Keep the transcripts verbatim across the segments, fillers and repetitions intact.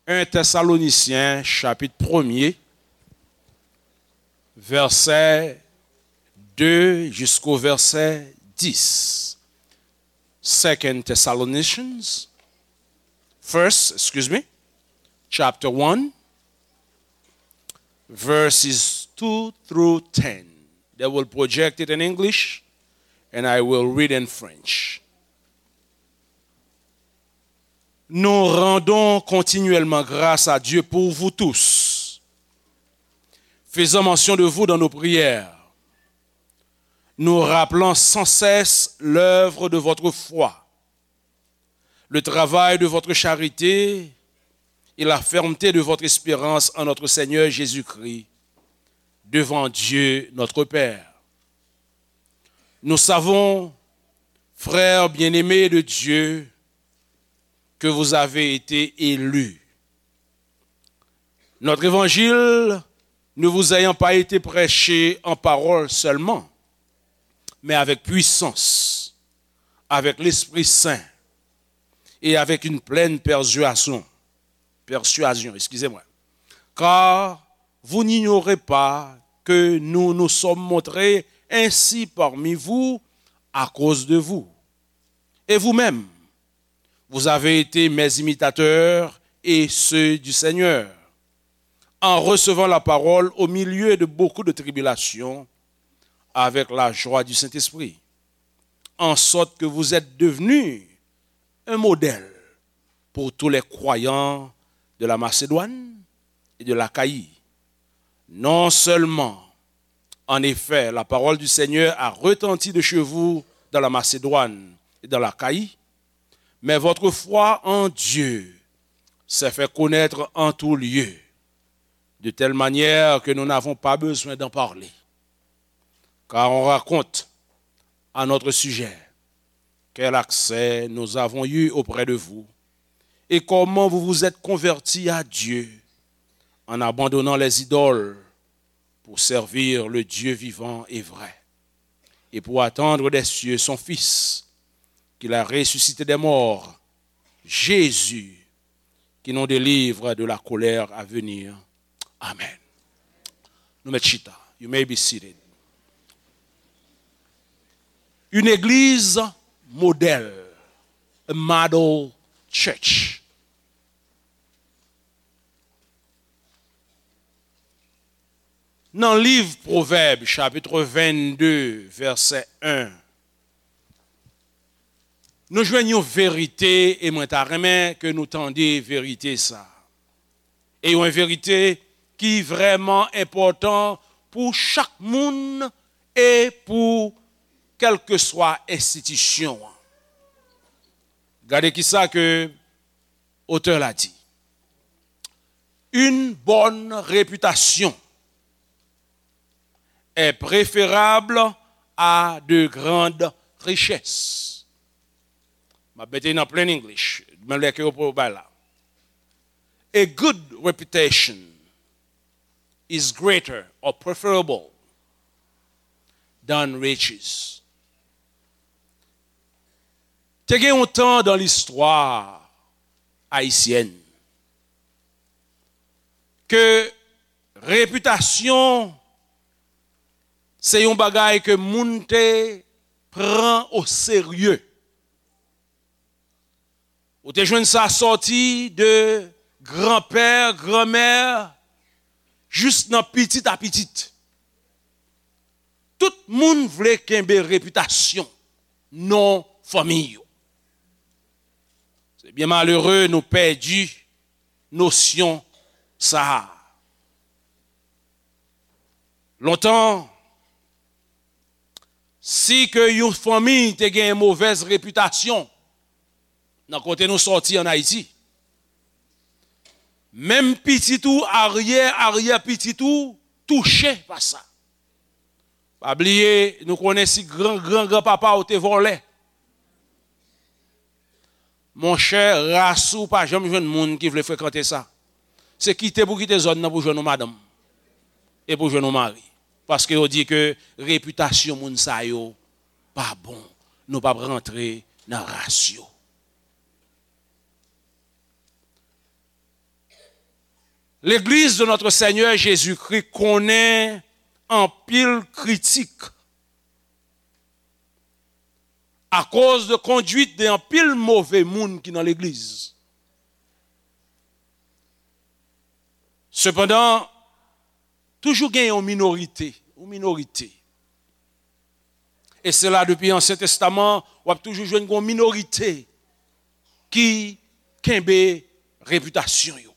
En Tèsalonisyen, chapit premye, vèsè de jisko vèsè dis. Second Thessalonians, first, excuse me, chapter one, verses two through ten. They will project it in English, and I will read in French. Nous rendons continuellement grâce à Dieu pour vous tous, faisant mention de vous dans nos prières, nous rappelant sans cesse l'œuvre de votre foi, le travail de votre charité et la fermeté de votre espérance en notre Seigneur Jésus-Christ, devant Dieu notre Père. Nous savons, frères bien-aimés de Dieu, que vous avez été élus. Notre évangile ne vous ayant pas été prêché en parole seulement, mais avec puissance, avec l'Esprit Saint et avec une pleine persuasion, persuasion, excusez-moi. Car vous n'ignorez pas que nous nous sommes montrés ainsi parmi vous à cause de vous. Et vous-même, vous avez été mes imitateurs et ceux du Seigneur, en recevant la parole au milieu de beaucoup de tribulations, avec la joie du Saint-Esprit, en sorte que vous êtes devenus un modèle pour tous les croyants de la Macédoine et de l'Achaïe. Non seulement, en effet, la parole du Seigneur a retenti de chez vous dans la Macédoine et dans l'Achaïe, mais votre foi en Dieu s'est fait connaître en tout lieu, de telle manière que nous n'avons pas besoin d'en parler. Car on raconte à notre sujet quel accès nous avons eu auprès de vous et comment vous vous êtes convertis à Dieu en abandonnant les idoles pour servir le Dieu vivant et vrai, et pour attendre des cieux son Fils, qu'il a ressuscité des morts, Jésus, qui nous délivre de la colère à venir. Amen. Nou mèt chita. You may be seated. Une église modèle, a model church. Nan liv Pwovèb, chapit vennde, vèsè en, nou jwenn yon verite, e mwen ta renmen ke nou tande verite sa. E yon verite ki vrèman enpòtan pou chak moun e pou kèlkeswa enstitisyon an. Gade kisa ke otè la di. Une bonne réputation est préférable à de grandes richesses. M ap mete nan plain English, menm lè ke yo pou bay la. A good reputation is greater or preferable than riches. Te gen yon tan dan listwa ayisyèn ke repitasyon se yon bagay ke moun te pran o serye. Ou te jwenn sa sòti de granpè, granmè, jis nan pitit a pitit. Tout moun vle kenbe repitasyon, non fanmi yo. Se byen malere nou pèdi nosyon sa a. Lontan, si ke yon fanmi te gen movèz repitasyon nan kote nou sòti ann Ayiti, menm pitit ou, aryè, aryè pitit ou touche pa sa. Pa bliye, nou konnen si gran, gran, granpapa w te vòlè. Monchè, ras ou pa janm jwenn moun ki vle frekante sa. Se kite pou kite zòn nan pou jwenn yon madanm. E pou jwenn yon mari. Paske yo di ke repitasyon moun sa yo pa bon. Nou p ap rantre nan ras yo. Legliz de Notre Seigneur Jésus-Christ konnen anpil kritik akoz de kondwit de anpil move moun ki nan legliz. Sepandan, toujou gen yon minorite, yon minorite. E se la, depi Ansyen Testaman, w ap toujou jwenn yon minorite ki kenbe repitasyon yo.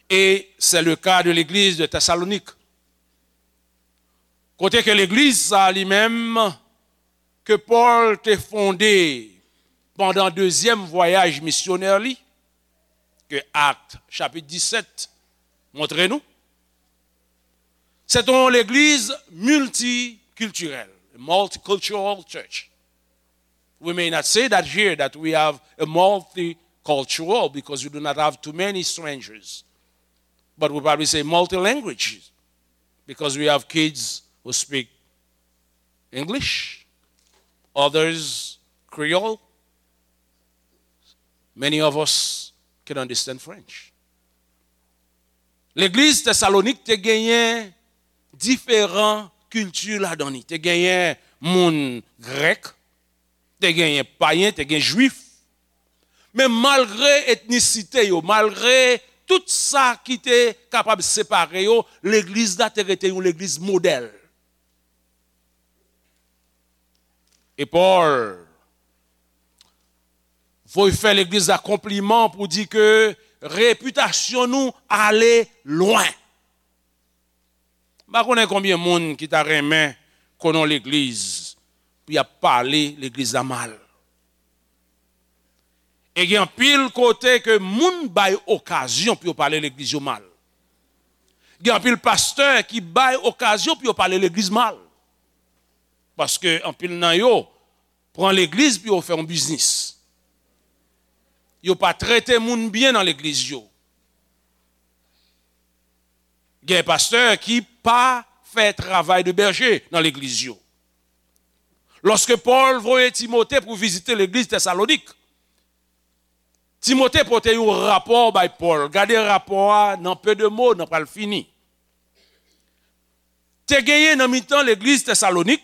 E se le ka de legliz de Tesalonik. Kote ke legliz sa li menm, ke Pòl te fonde pandan dezyèm vwayaj misyonè li, ke Akt chapit disèt montre nou, se te yon legliz miltikiltirèl, multicultural church. We may not say that here, that we have a multicultural, because we do not have too many strangers. But we probably say multilanguage, because we have kids who speak English, others Creole, many of us can understand French. Legliz Tesalonik te genyen diferan kilti ladan li. Te genyen moun grèk, te genyen payen, te gen jwif. Men malgre etnisite yo, malgre tout sa ki te kapab separe yo, legliz la te rete yon legliz modèl. E Pòl voye fè legliz la konpliman pou di ke repitasyon nou ale lwen. M pa konnen konbyen moun ki ta renmen konnen yon legliz pou y ap pale legliz la mal. E gen anpil kote ke moun bay okazyon pou yo pale legliz yo mal. Gen anpil pastè ki bay okazyon pou yo pale legliz mal. Paske anpil nan yo pran legliz pou yo fè yon biznis. Yo pa trete moun byen nan legliz yo. Gen pastè ki pa fè travay de bèje nan legliz yo. Lòske Pòl voye Timote pou vizite legliz Tesalonik, Timote pote yon rapò bay Pòl. Gade rapò a nan peu de mots, n ap pral fini. Te genyen nan mitan legliz Tesalonik,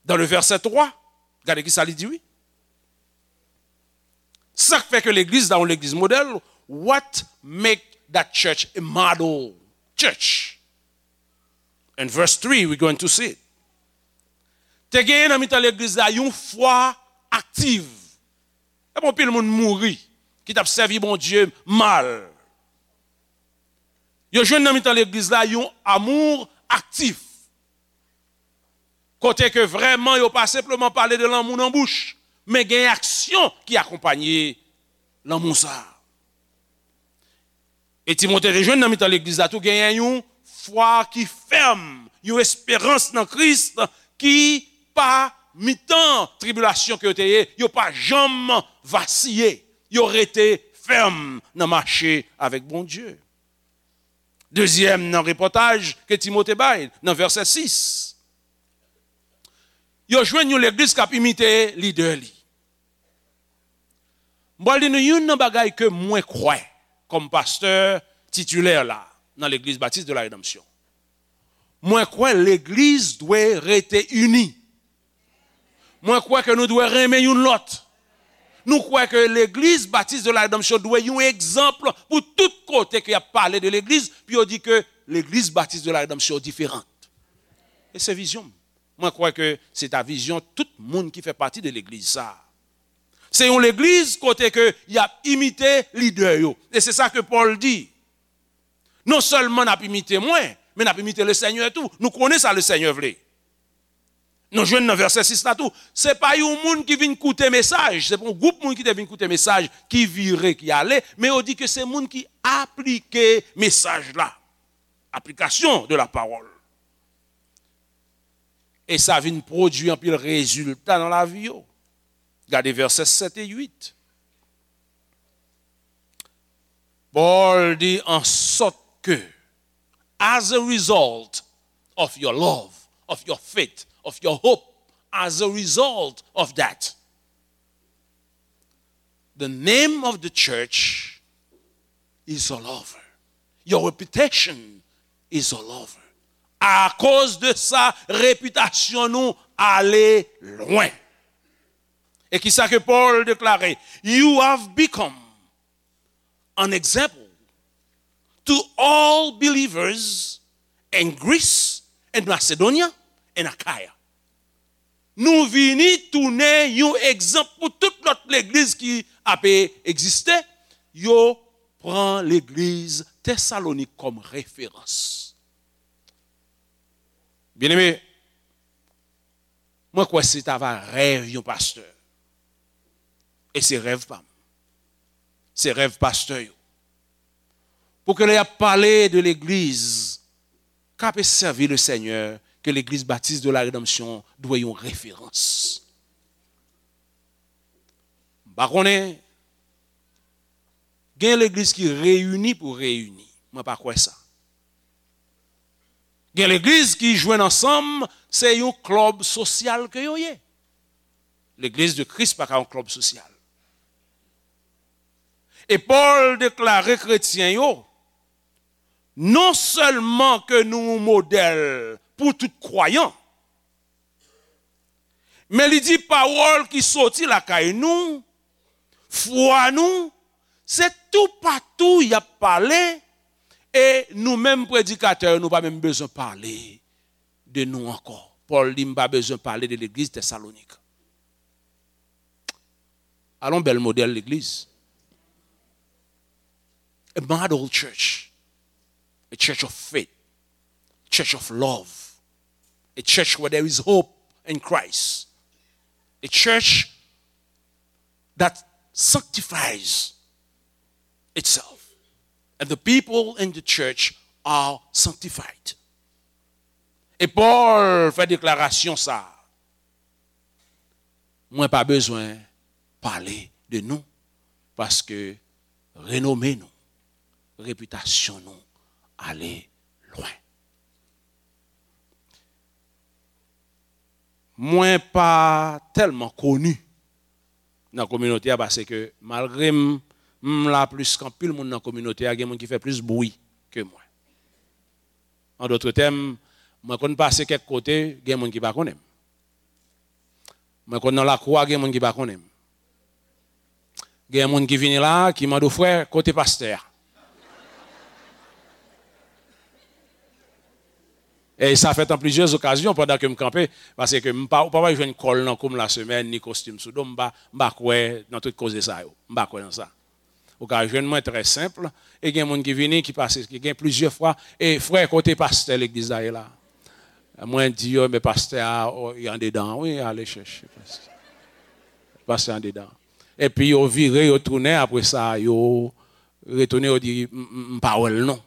dans le verset twa, gade ki sa li di, wi. Sa k fè ke legliz la yon legliz modèl, what make that church a model church? In verse three, we're going to see it. Te genyen nan mitan legliz la yon fwa aktiv. E bon, pil moun mouri ki t ap sèvi Bondye mal. Yo jwenn nan mitan legliz la yon amour aktif. Kote ke vrèman yo pa senpleman pale de lanmou nan bouch, men gen aksyon ki akonpaye lanmou sa a. E Timote te jwenn nan mitan legliz la tou genyen yon fwa ki fèm, yon esperans nan Kris ki pa mitan tribilasyon ke yo te ye, yo pa janm vasiye, yo rete fèm nan mache avèk Bondye. Dezyèm nan repòtaj ke Timote bay nan vèsè sis. Yo jwenn yon legliz k ap imite lidè li. M pral di nou youn nan bagay ke mwen kwè kòm pastè titilè la nan Legliz Batis de la Redanmsyon. Mwen kwè legliz dwe rete ini. Mwen kwè ke nou dwe renmen youn lòt. Nou kwè ke Legliz Batis de la Redanmsyon dwe yon egzanp pou tout kote ke y ap pale de legliz, pou yo di ke Legliz Batis de la Redanmsyon diferan. E se vizyon m. Mwen kwè ke se ta vizyon tout moun ki fè pati de legliz sa a. Se yon legliz kote ke y ap imite lidè yo. E se sa ke Pòl di. Non sèlman n ap imite mwen, men n ap imite Lesenyè tou. Nou konnen sa Lesenyè vle. Nou jwenn nan vèsè sis la tou. Se pa yon moun ki vin koute mesaj, se pa yon gwoup moun ki te vin koute mesaj, ki vire, ki ale, men yo di ke se moun ki aplike mesaj la. Application de la parole. E sa vin pwodui anpil rezilta nan lavi yo. Gade vèsè sèt e uit. Pòl di, an sòt ke, as a result of your love, of your faith, of your hope, as a result of that, the name of the church is all over. Your reputation is all over. Akoz de sa, repitasyon nou ale lwen. E kisa ke Pòl deklare? You have become an example to all believers in Greece and Macedonia and Achaia. Nou vini tounen yon egzanp pou tout lòt legliz ki ape egziste. Yo pran legliz Tesalonik kòm referans. Byeneme, mwen kwè se ta va rèv yon pastè. E se rèv pa m. Se rèv pastè yo. Pou ke lè y ap pale de legliz k ape sèvi le Senyè, ke legliz Batis de la Redanmsyon dwe yon referans. M pa konnen, gen legliz ki reyini pou reyini. Mwen pa kwè sa. Gen legliz ki jwenn ansanm, se yon klèb sosyal ke yo ye. Legliz de Kris pa ka yon klèb sosyal. E Pòl deklare kretyen yo, non sèlman ke nou yon modèl pou tout kwayan, men li di pawòl ki soti lakay nou, fwa nou, se toupatou y ap pale, e nou menm predikatè yo, nou pa menm bezwen pale de nou ankò. Pòl di, "M pa bezwen pale de legliz Tesalonik." Alon bèl modèl legliz. A model church. A church of faith. Church of love. A church where there is hope in Christ. A church that sanctifies itself. And the people in the church are sanctified. E Pòl fè deklarasyon sa a. Mwen pa bezwen pale de nou, paske renome nou, repitasyon nou ale lwen. Mwen pa tèlman koni nan kominote a, paske malgre m, m la plis ke anpil moun nan kominote a, gen moun ki fè plis bri ke mwen. An dòt tèm, mwen konn pase kèk kote, gen moun ki pa konnen m. Mwen konn nan lakou a, gen moun ki pa konnen m. Gen moun ki vini la, ki mande w, "Frè, kote pastè a?" E sa fèt an plizyè okazyon pandan ke m kanpe, paske m pa, ou pa pral jwenn kòl nan kou m lasemèn, ni kostim sou do m, m pa, m pa kwè nan tout koze sa yo. M pa kwè nan sa. Ou ka jwenn mwen trè senp, e gen moun ki vini, ki pase, ki gen plizyè fwa, "E frè, kote pastè legliz la ye la?" Mwen di yo, "Men pastè a, o, li andedan, wi, ale chèche pastè. Pastè andedan." Epi yo vire, yo tounen, apre sa, yo retounen, yo di, "M, m, m pa wè l non."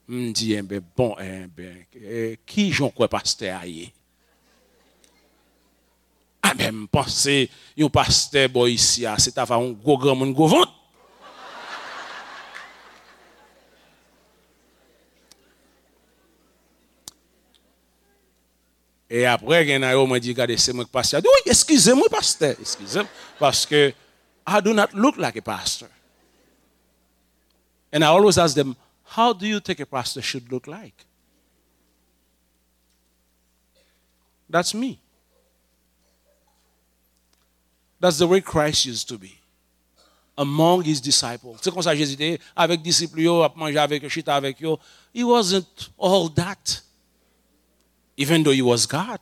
M di, "Enben, bon, enben, e, ki jan w kwè pastè a ye?" Enben, m panse yon pastè bò isi a, se ta va yon gwo granmoun gwo vant. E apre, gen nan yo, mwen di, "Gade, se mwen k pastè a." Di, "Wi, eskize m, wi, pastè, eskize m, paske I do not look like a pastor." And I always ask them, "How do you think a pastor should look like?" That's me. That's the way Christ used to be among his disciples. Se konsa Jezi te ye, avèk disip li yo, ap manje avèk yo, chita avèk yo. He wasn't all that, even though he was God.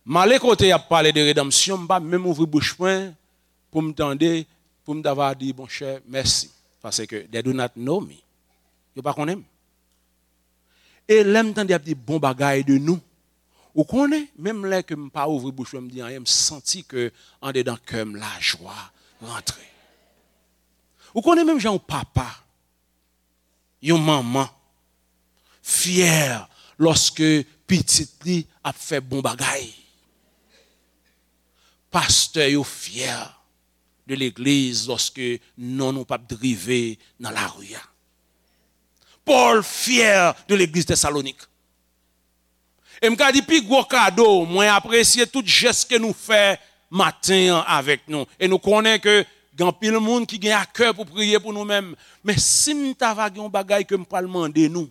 M ale kote y ap pale de redanmsyon, m pa menm ouvri bouch mwen pou m tande, pou m ta va di, "Monchè, mèsi." Paske they do not know me. Yo pa konnen m. E lè m tande y ap di bon bagay de nou, ou konnen, menm lè ke m pa ouvri bouch mwen, m di anyen, m santi ke andedan kè m, lajwa rantre. Ou konnen, menm jan yon papa, yon manman fyè lòske pitit li ap fè bon bagay. Pastè yo fyè de legliz lòske non nou p ap drive nan lari a. Pòl fyè de legliz Tesalonik. E m ka di pi gwo kado, mwen apresye tout jès ke nou fè maten an avèk nou. E nou konnen ke gen anpil moun ki gen akè pou priye pou nou menm. Men si m ta va gen yon bagay ke m pral mande nou,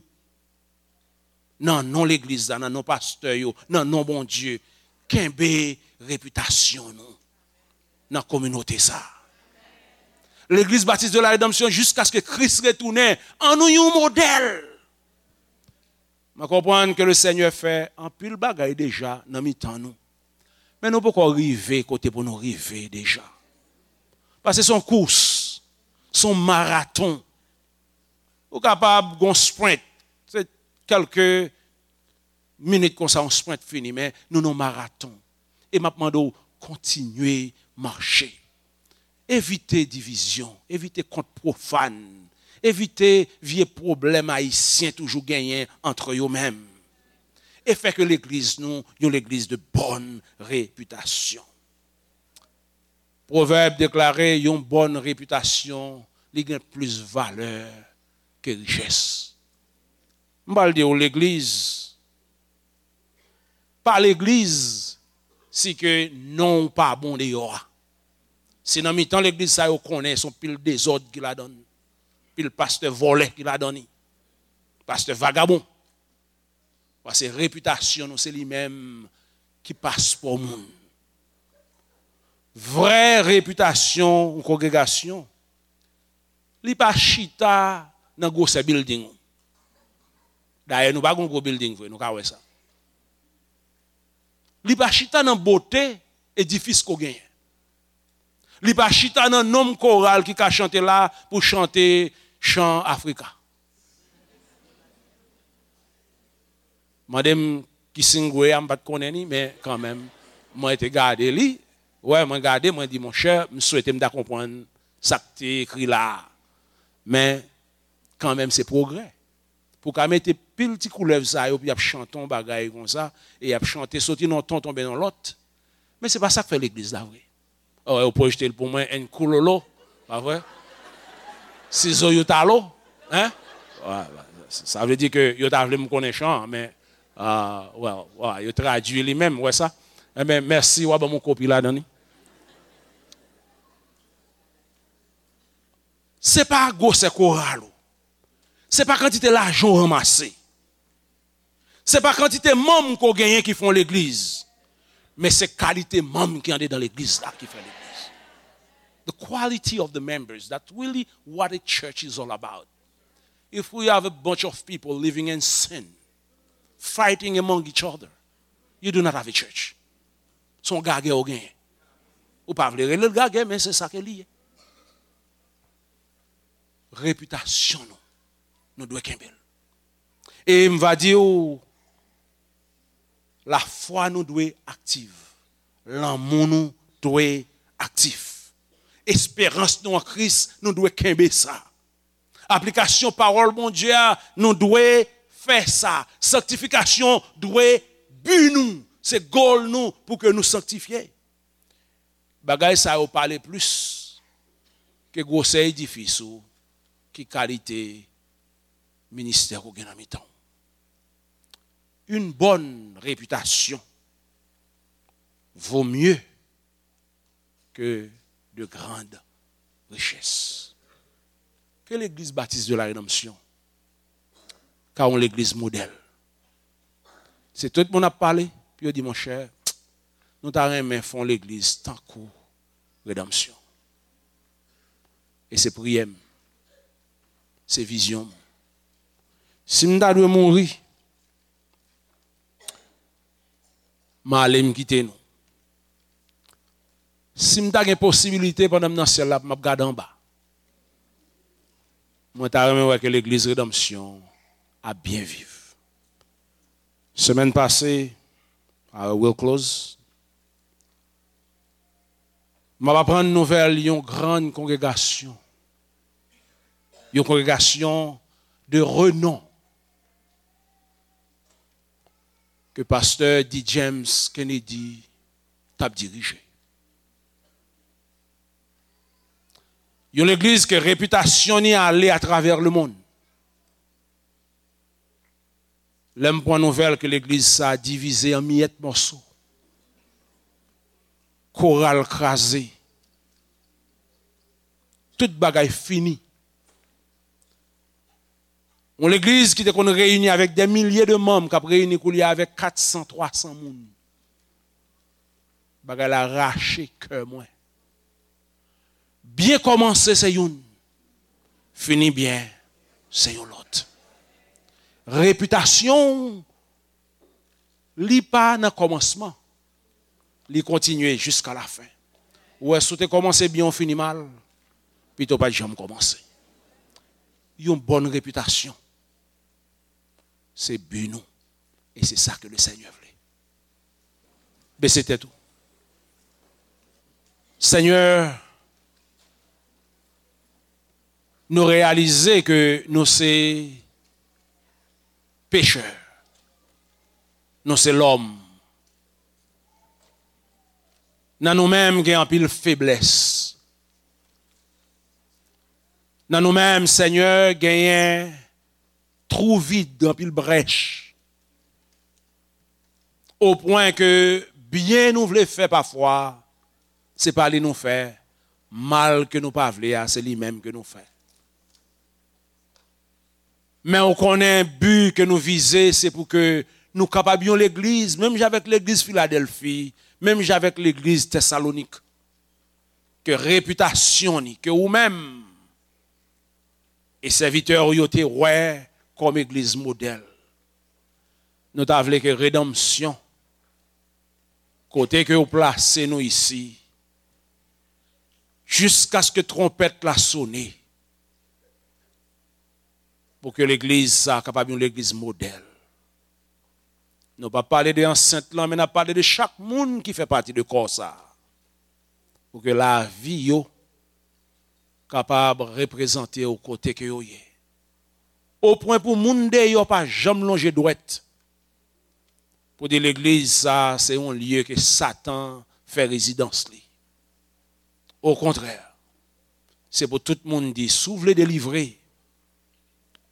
nan non legliz la, nan non pastè yo, nan non Bondye, kenbe repitasyon nou nan kominote sa. Legliz Batis de la Redanmsyon, jiskaske Kris retounen, an nou yon modèl. Mwen konprann ke le Senyè fè anpil bagay deja nan mitan nou. Men nou poko rive kote pou nou rive deja. Paske se yon kous, se yon maraton. Ou kapab gon sprint, se kèlke minit konsa, yon sprint fini, men nou nan maraton. E m ap mande w kontinye mache. Evite divizyon, evite kont pwofàn, evite vye pwoblèm ayisyen toujou genyen antre yo menm. E fè ke legliz nou, yon legliz de bòn repitasyon. Pwovèb deklare, yon bòn repitasyon, li gen plis valè ke richès. M pral di w, legliz pa legliz si ke non w pa bon deyò a. Si nan mitan legliz sa yo konnen se yon pil dezòd ki ladan l, pil pastè vòlè ki ladan li, pastè vagabon. Paske repitasyon nou se li menm ki paspò moun. Vrè repitasyon yon kongregasyon, li pa chita nan gwosè bilding ou. Dayè, nou pa gen gwo bilding vre, nou ka wè sa. Li pa chita nan bote edifis ke w genyen. Li pa chita nan nonm koral ki ka chante la pou chante chan Afrika. Mande m ki singwe a, m pa t konnen li, men kanmenm, mwen te gade li. Wè, mwen gade, mwen di, monchè, m swete m ta konprann sa k te ekri la a. Men, kanmenm, se pwogrè. Pou w ka mete pil ti koulèv sa yo, pou y ap chante yon bagay konsa, e y ap chante soti nan yon ton tonbe nan lòt. Men se pa sa k fè legliz la vre. Ò, yo pwojte l pou mwen, en koulolo, pa vre? Sizo yo talo, hein? Wè, wè, sa vle di ke yo ta vle m konnen chan an, men, ah, wè, wè, yo tradui li menm, wè sa? Enben, mèsi, w a ban m yon kopi ladan li. Se pa gwosè koral ou. Se pa kantite lajan w ranmase. Se pa kantite manm ke w genyen ki fè yon legliz. Men se kalite manm ki andedan legliz la ki fè legliz. The quality of the members, that's really what a church is all about. If we have a bunch of people living in sin, fighting among each other, you do not have a church. Se yon gagè w genyen. Ou pa vle rele l gagè, men se sa ke li ye. Repitasyon nou, nou dwe kenbe l. E m va di w, lafwa nou dwe aktif. Lanmou nou dwe aktif. Esperans nou an Kris, nou dwe kenbe sa. Aplikasyon pawòl Bondye a, nou dwe fè sa. Sanktifikasyon dwe bi nou. Se gòl nou pou ke nou sanktifye. Bagay sa yo pale plis ke gwosè edifis ou, ki kalite ministè ke w gen nan mitan w. Une bonne réputation vaut mieux que de grandes richesses. Ke legliz Batis de la Redanmsyon ka yon legliz modèl. Se tout moun ap pale, pou yo di, monchè, nou ta renmen fè yon legliz tankou Redanmsyon. E se priyè m, se vizyon m. Si m ta dwe mouri, m ale, m kite nou. Si m ta gen posibilite pandan m nan syèl la pou m ap gade anba, mwen ta renmen wè ke legliz Redanmsyon ap byen viv. Semèn pase, I will close, m ap aprann nouvèl yon grann kongregasyon, yon kongregasyon de renon ke pastè D. James Kennedy t ap dirije. Yon legliz ke repitasyon ni ale atravè lemonn. Lè m pran nouvèl ke legliz sa a divize an miyèt mòso, Koral kraze. Tout bagay fini. Yon legliz ki te konn reyini avèk dè milye de manm, k ap reyini koulye a avèk kat san, twa san moun. Bagay la rache kè mwen. Byen kòmanse se youn, fini byen se yon lòt. Repitasyon w, li pa nan kòmansman, li kontinye jiska lafen. Ou wè, si w te kòmanse byen, w fini mal, pito w pa t janm kòmanse. Yon bòn repitasyon, se bi nou. E se sa ke le Senyè vle. Bese tèt ou. Senyè, nou reyalize ke nou se pechè. Nou se lòm. Nan nou menm gen anpil feblès. Nan nou menm, Senyè, genyen twou vid, anpil brèch. O pwen ke byen nou vle fè pafwa, se pa li nou fè, mal ke nou pa vle a, se li menm ke nou fè. Men ou konnen bi ke nou vize, se pou ke nou kapab yon legliz, menm jan avèk legliz Filadèlfi, menm jan avèk legliz Tèsalonik, ke repitasyon ni, ke ou menm e sèvitè w yo te wè kòm egliz modèl. Nou ta vle ke redanmsyon, kote ke ou plase nou isi, jiskaske twonpèt la sone, pou ke legliz sa a kapab yon legliz modèl. Nou p ap pale de ansent lan, men n ap pale de chak moun ki fè pati de kò sa a. Pou ke lavi yo kapab reprezante w kote ke yo ye. O pwen pou moun deyò pa janm lonje dwèt pou di legliz sa a se yon lye ke Satan fè rezidans li. Okontrè, se pou tout moun di, si w vle delivre,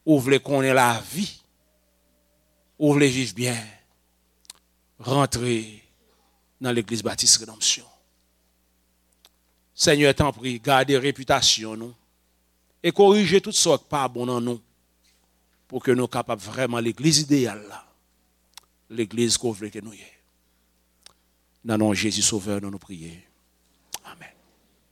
ou vle konnen lavi, ou vle viv byen, rantre nan Legliz Batis Redanmsyon. Senyè, tanpri, gade repitasyon nou e korije tout sa k pa bon nan nou, pou ke nou kapab vrèman legliz ideyal la, legliz ke w vle ke nou ye. Nan non Jezi Sovè nou, nou priye. Amèn.